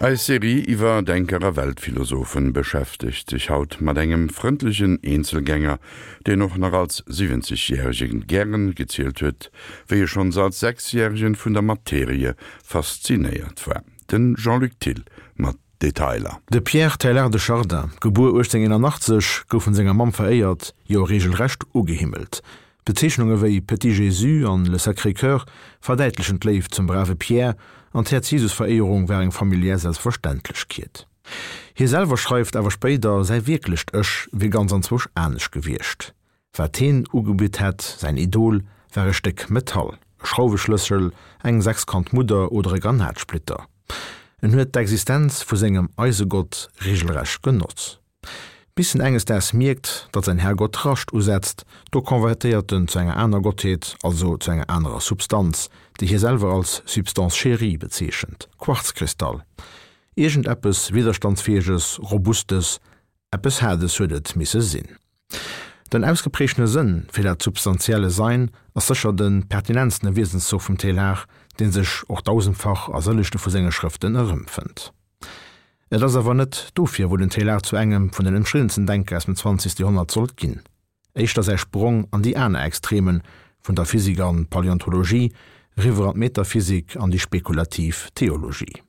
Eis Serie iwwer Denker a Weltphilosophen beschäftegt sech haut mat engem frëndlechen Eenzelgänger, deen och nach als 70 Järegen gären gezielt huet, wéi e schonns als 6 Järegen vun der Materie faszinéiert war. Den Jean-Luc Thill mat Detailer. De Pierre Teilhard de Chardin, gebuer 1881, gouf vun senger Mamm veréiert, jo reegelrecht ugehimmelt. Bezeechnunge wéi Petit Jésus an Le Sacré Cœur verdäitlechen d'Léift zum brave Pierre, an d'Häerz-Jesus-Veréierung war eng familiär Selbstverständlechkeet. Hie selwer schreift awer spéider, säi wierklecht Ech wier ganz anzwousch anescht gewiescht. Wat heen ugebitt hätt, säin Idol, war e Stéck Metall, e Schrauweschlëssel, eng sechskant Mudder oder e Granatsplitter. En huet d'Existenz vu sengem Eisegott regelrecht genoss. Bis en enges Daags mierkt, datt säin Herrgott Rascht usetzt, do konvertéiert en zu enger aner Gottheet, also zu enger anerer Substanz, déi hie selwer als Substance chérie bezeechent, Quarzkristall. Iergendeppes Widderstandsfäeges, Robustes, eppes Haardes huet et misse sinn. Den ausgeprägtene Sënn fir dat substantielle Sein ass sécher de pertinentstene Wiesenszoch vum Teilhard, dee sech och dausendfach a sëllechte vu senge Schrëften erëmfënnt. Et ass awer net dofir, wou den Teilhard zu engem vun den ëmstriddensten Denker aus dem zwanzegste Joerhonnert sollt ginn. Éischter säi Sprong an déi aner Extremen, vun der Physik an d'Paläontologie, riwwer an d'Metaphysik an déi spekulativ Theologie.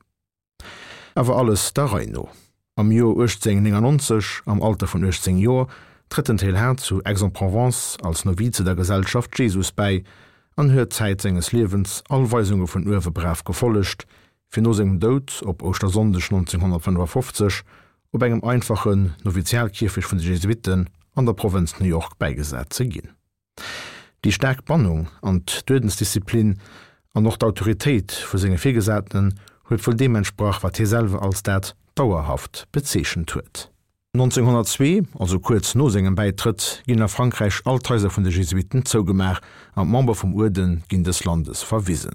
Awer alles der Rei no. Am Joer 1899, am Alter vun 18 Joer, trëtt den Teilhard zu Aix-en-Provence als Novize der Gesellschaft Jesus bäi an huet Zäit senges Liewens all Weisunge vun uewe brav gefollegt, fir no sengem Doud op Ouschtersonndeg 1955 op engem einfachen Novizialkierfecht vun de Jesuitten an der Provënz New York bäigesat ze ginn. Déi staark Bannung an d'Uerdensdisziplin an och d'Autoritéit vu senge Virgesatenen huet wuel deem entsprach, wat hie selwer als dat Dauerhaft bezeechent huet. 1902, also kuerz no sengem Bäitrëtt, ginn a Frankräich all d'Haiser vun de Jesuitten zougemaach an d'Member vum Uerde ginn dës Landes verwisen.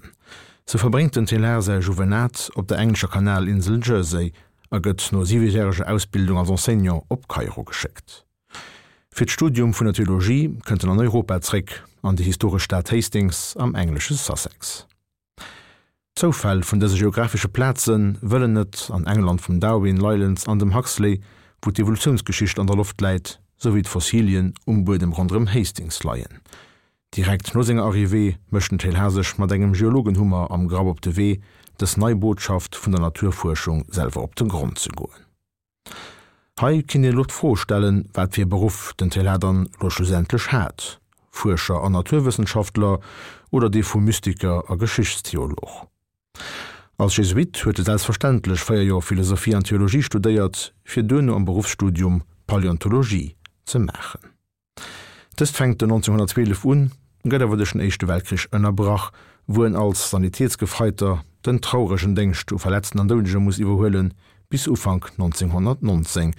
Sou verbréngt den Teilhard säi Juvenat op der englescher Kanalinsel Jersey a gëtt no siwejäreger Ausbildung als Enseignant op Kairo geschéckt. Fir d'Studium vun der Theologie kënnt en an Europa zréck, an déi historesch Stad Hastings am englesche Sussex. D'Zoufäll vun dëse geographesche Plaze wëllen et, an England vum Darwin, Leylands an dem Huxley, wou d'Evolutiounsgeschicht an der Loft läit, souwéi d'Fossilien um Buedem ronderëm Hastings leien. Direkt no senger Arrivée mécht den Teilhard sech mat engem Geologenhummer am Grapp op de Wee, dës nei Botschaft vun der Naturfuerschung selwer op de Grond ze goen. Hei kinnt een elo d'Fro stellen, wat fir e Beruff den Teilhard dann elo schlussendlech hat, Fuerscher an Naturwëssenschaftler oder dee vu Mystiker a Geschichtstheolog. Als Jesuit huet e selbstverständlech 4 Joer Philosophie an Theologie studéiert, fir duerno am Beruffsstudium Paläontologie ze maachen. Dëst fänkt den 1912 un, gëtt awer duerch den Éischte Weltkrich ënnerbrach, wou en als Sanitätsgefreiter den trauregen Déngscht u Verletzten an Doudege muss iwwerhuelen, bis Ufank 1919.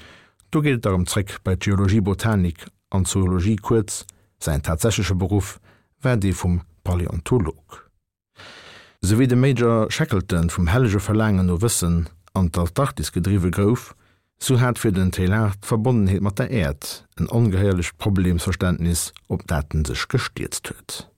Do geet et da rëm zréck bei d'Geologie, Botanik an Zoologie, kuerz, säin tatsächleche Beruff war dee vum Paläontolog. Sou wéi de Major Shackleton vum hellege Verlaangen no Wëssen an d'Antarktis gedriwwe gouf, sou hat fir den Teilhard d'Verbonnenheet mat der Äerd en ongehéierlecht Problemsverständnis, op dat en sech gestierzt huet.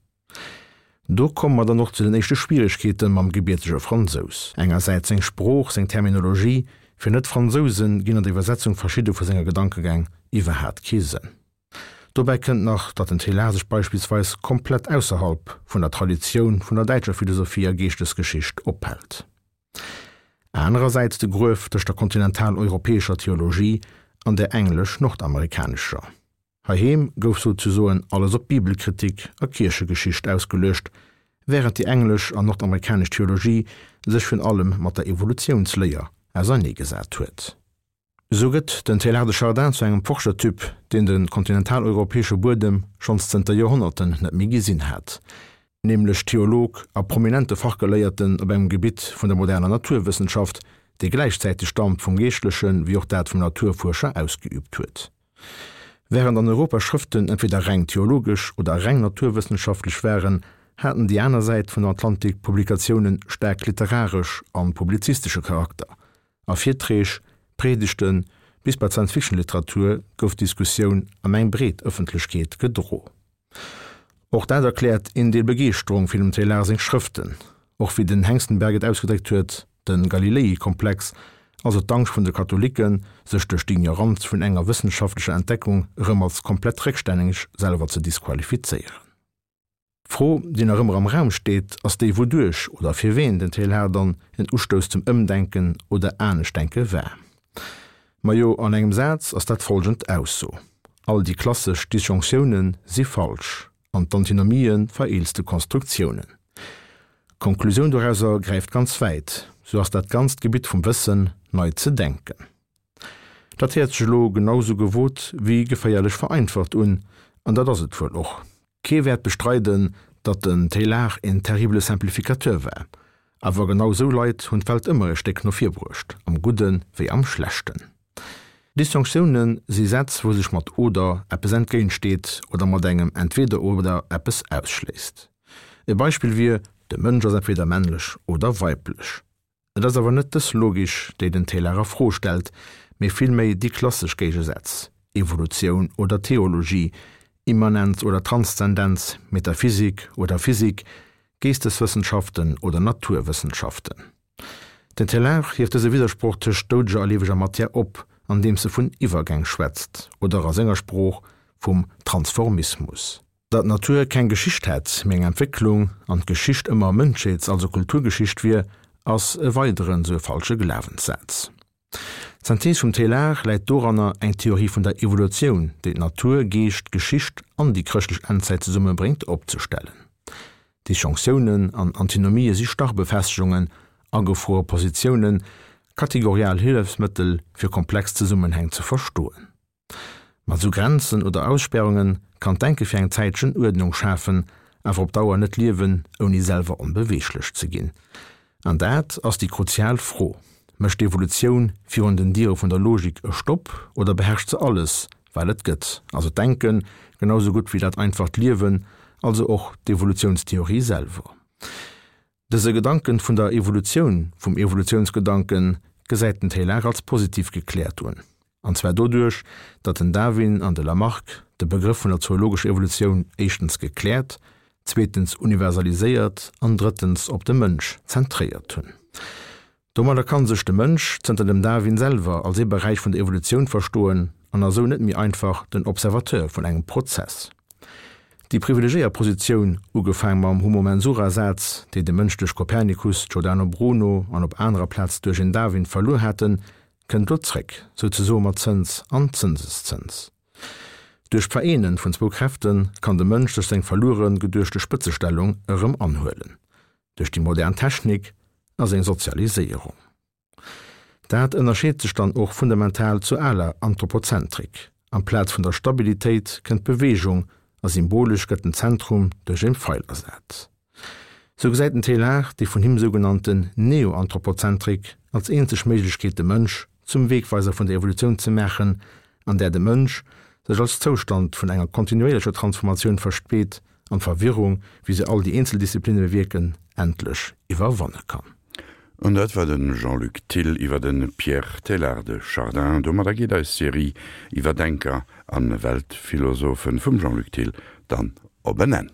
Do komme mer dann och zu den éischte Schwieregkeete mam gebiertege Fransous. Engersäits seng Sprooch, seng Terminologie, fir Net-Fransouse ginn an der Iwwersetzung verschidde vu senger Gedankegäng iwwerhaat kee Sënn. Dobäi kënnt nach, datt den Teilhard sech beispillsweis komplett ausserhalb vun der Traditioun vun der däitscher Philosophie a Geeschtesgeschicht ophält. Anerersäits de Gruef tëscht der kontinentaleuropäescher Theologie an der englesch-nordamerikanescher. Heiheem gouf souzesoen alles op Bibelkritik a Kierchegeschicht ausgeluecht, wärend déi englesch an nordamerikanesch Theologie sech virun allem mat der Evolutiounsléier auserneegesat huet. Esou gëtt den Teilhard de Chardin zu engem Forschertyp, deen de kontinentaleuropäesche Buedem schonns zënter Joerhonnerten net méi gesinn hat, nämlech Theolog a prominente Fachgeléierten op engem Gebitt vun der moderner Naturwëssenschaft, dee gläichzäiteg d'Amt vum Geeschtleche wéi och dat vum Naturfuerscher ausgeüübt huet. Wärend an Europa Schrëften entweder reng theologesch oder reng naturwëssenschaftlech waren, haten déi aner Säit vun dem Atlantik Publikatioune staark literaresch an publizistesche Charakter, A Virträg, Priedegten bis bei d'Science-Fiction-Literatur gouf d'Diskussioun an eng breet Ëffentlechkeet gedro. Och dat erkläert een Deel Begeeschterung fir dem Teilhard seng Schrëften. Och wéi den Hengstenberg et ausgedréckt huet, de Galilei-Komplex, also d'Angscht vun de Katholiken, sech duerch d'Ignoranz vun enger wëssenschaftlecher Entdeckung erëm als komplett réckstänneg selwer ze disqualifizéieren. D'Fro, déi nach ëmmer am Raum steet, ass déi wouduerch oder fir ween den Teilhard dann en Ustouss zum Ëmdenken oder Aneschtdenke war. Majo, an engem Saz ass dat folgend Ausso, All déi klassesch Disjonctiounen si falsch an d'Antinomie vereelzte Konstruktiounen. D'Konklusioun dorauser gräift ganz wäit, Sou ass dat ganzt Gebitt vum Wëssen nei ze denken. Dat héiert sech elo genau sou gewot wéi geféierlech vereinfacht un, an dat ass et wuel och. Kee wäert bestreiden, datt den Teilhard een terrible Simplificateur war. Awer genau sou Leit hunn d'Welt ëmmer e Stéck no vir bruecht, am Gudde wéi am Schlechten. Disjonctioune si Sätz, wou sech mat oder eppes entgéintsteet oder mat engem Entweder-oder eppes ausschléisst. E Beispill wier, De Mënsch ass entweder männlech oder weiblech. Et ass awer net dës Logik, déi den Teilhard a Fro stellt, mee villméi déi klassesch Géigesätz, Evolutioun oder Theologie, Immanenz oder Transzendenz, Metaphysik oder Physik, Geesteswëssenschaften oder Naturwëssenschaften. Den Teilhard hieft dëse Widdersproch tëscht doudeger a lieweger Matière op, andeems e vun Iwwergäng schwätzt, oder a senger Sprooch vum Transformismus. Datt d'Natur keng Geschicht hätt, mee eng Entwécklung, an d'Geschicht ëmmer Mënschheets-, also Kulturgeschicht wier, ass e weideren esou e falsche Glawenssaz. D'Synthees vum Teilhard läit doranner, eng Theorie vun der Evolutioun, déi d'Natur, Geescht, Geschicht an déi chrëschtlech Endzäit zesummebréngt, opzestellen. Disjonctiounen an Antinomië si starr Befestegungen, agefruere Positiounen, kategorial Hëllefsmëttel, fir komplex Zesummenhäng ze verstoen. Mat sou Grenzen oder Aussperrunge kann d'Denke fir eng Zäitchen Uerdnung schafen, awer op Dauer net liewen, ouni selwer onbeweeglech ze ginn. An dat ass déi kruzial Fro, Mécht d'Evolutioun virun den Diere vun der Logik e Stopp oder beherrscht se alles, wat et gëtt, also d'Denken, genau sou gutt wéi dat einfacht Liewen, also och d'Evolutiounstheorie selwer? Dëse Gedanken vun der Evolutioun, vum Evolutiounsgedanken, gesäit den Teilhard als positiv gekläert un. An zwar doduerch, datt den Darwin an de Lamarck de Begrëff vun der zoologescher Evolutioun éischtens gekläert, zweetens universaliséiert an drëttens op de Mënsch zentréiert hunn. Domadder kann sech de Mënsch zënter dem Darwin selwer als ee Beräich vun der Evolutioun verstoen an ass sou net méi einfach den Observateur vun engem Prozess. Déi privilegéiert Positioun, ugefaang mam Homo mensura-Saz, déi de Mënsch duerch Kopernikus, Giordano Bruno an op anerer Plaz duerch en Darwin verluer haten, kënnt lo zréck, souzesoe mat Zëns an Zënseszëns. Duerch d'Vereenen vun zwou Kräfte kann de Mënsch sech seng verluere geduechte Spëtzestellung erëm anhuelen. duerch déi modern Technik a seng Sozialiséierung. Dat ënnerscheet sech dann och fundamental zur aler Anthropozentrik, Amplaz vun der Stabilitéit kënnt d'Beweegung a symbolesch gëtt den Zentrum duerch en Feil ersat. Sou gesäit den Teilhard déi vun him sougenannten Neoanthropozentrik als eenzeg Méiglechkeet de Mënsch zum Wegweiser vun der Evolutioun ze maachen, an där de Mënsch sech als Zoustand vun enger kontinuéierlecher Transformatioun versteet an d'Verwirrung, wéi se all déi eenzel Disziplinne bewierken, endlech iwwerwanne kann. An dat war de Jean-Luc Thill iwwer de Pierre Teilhard de Chardin. Domadder geet eis Serie iwwer Denker a Weltphilosophen vum Jean-Luc Thill dann op en Enn.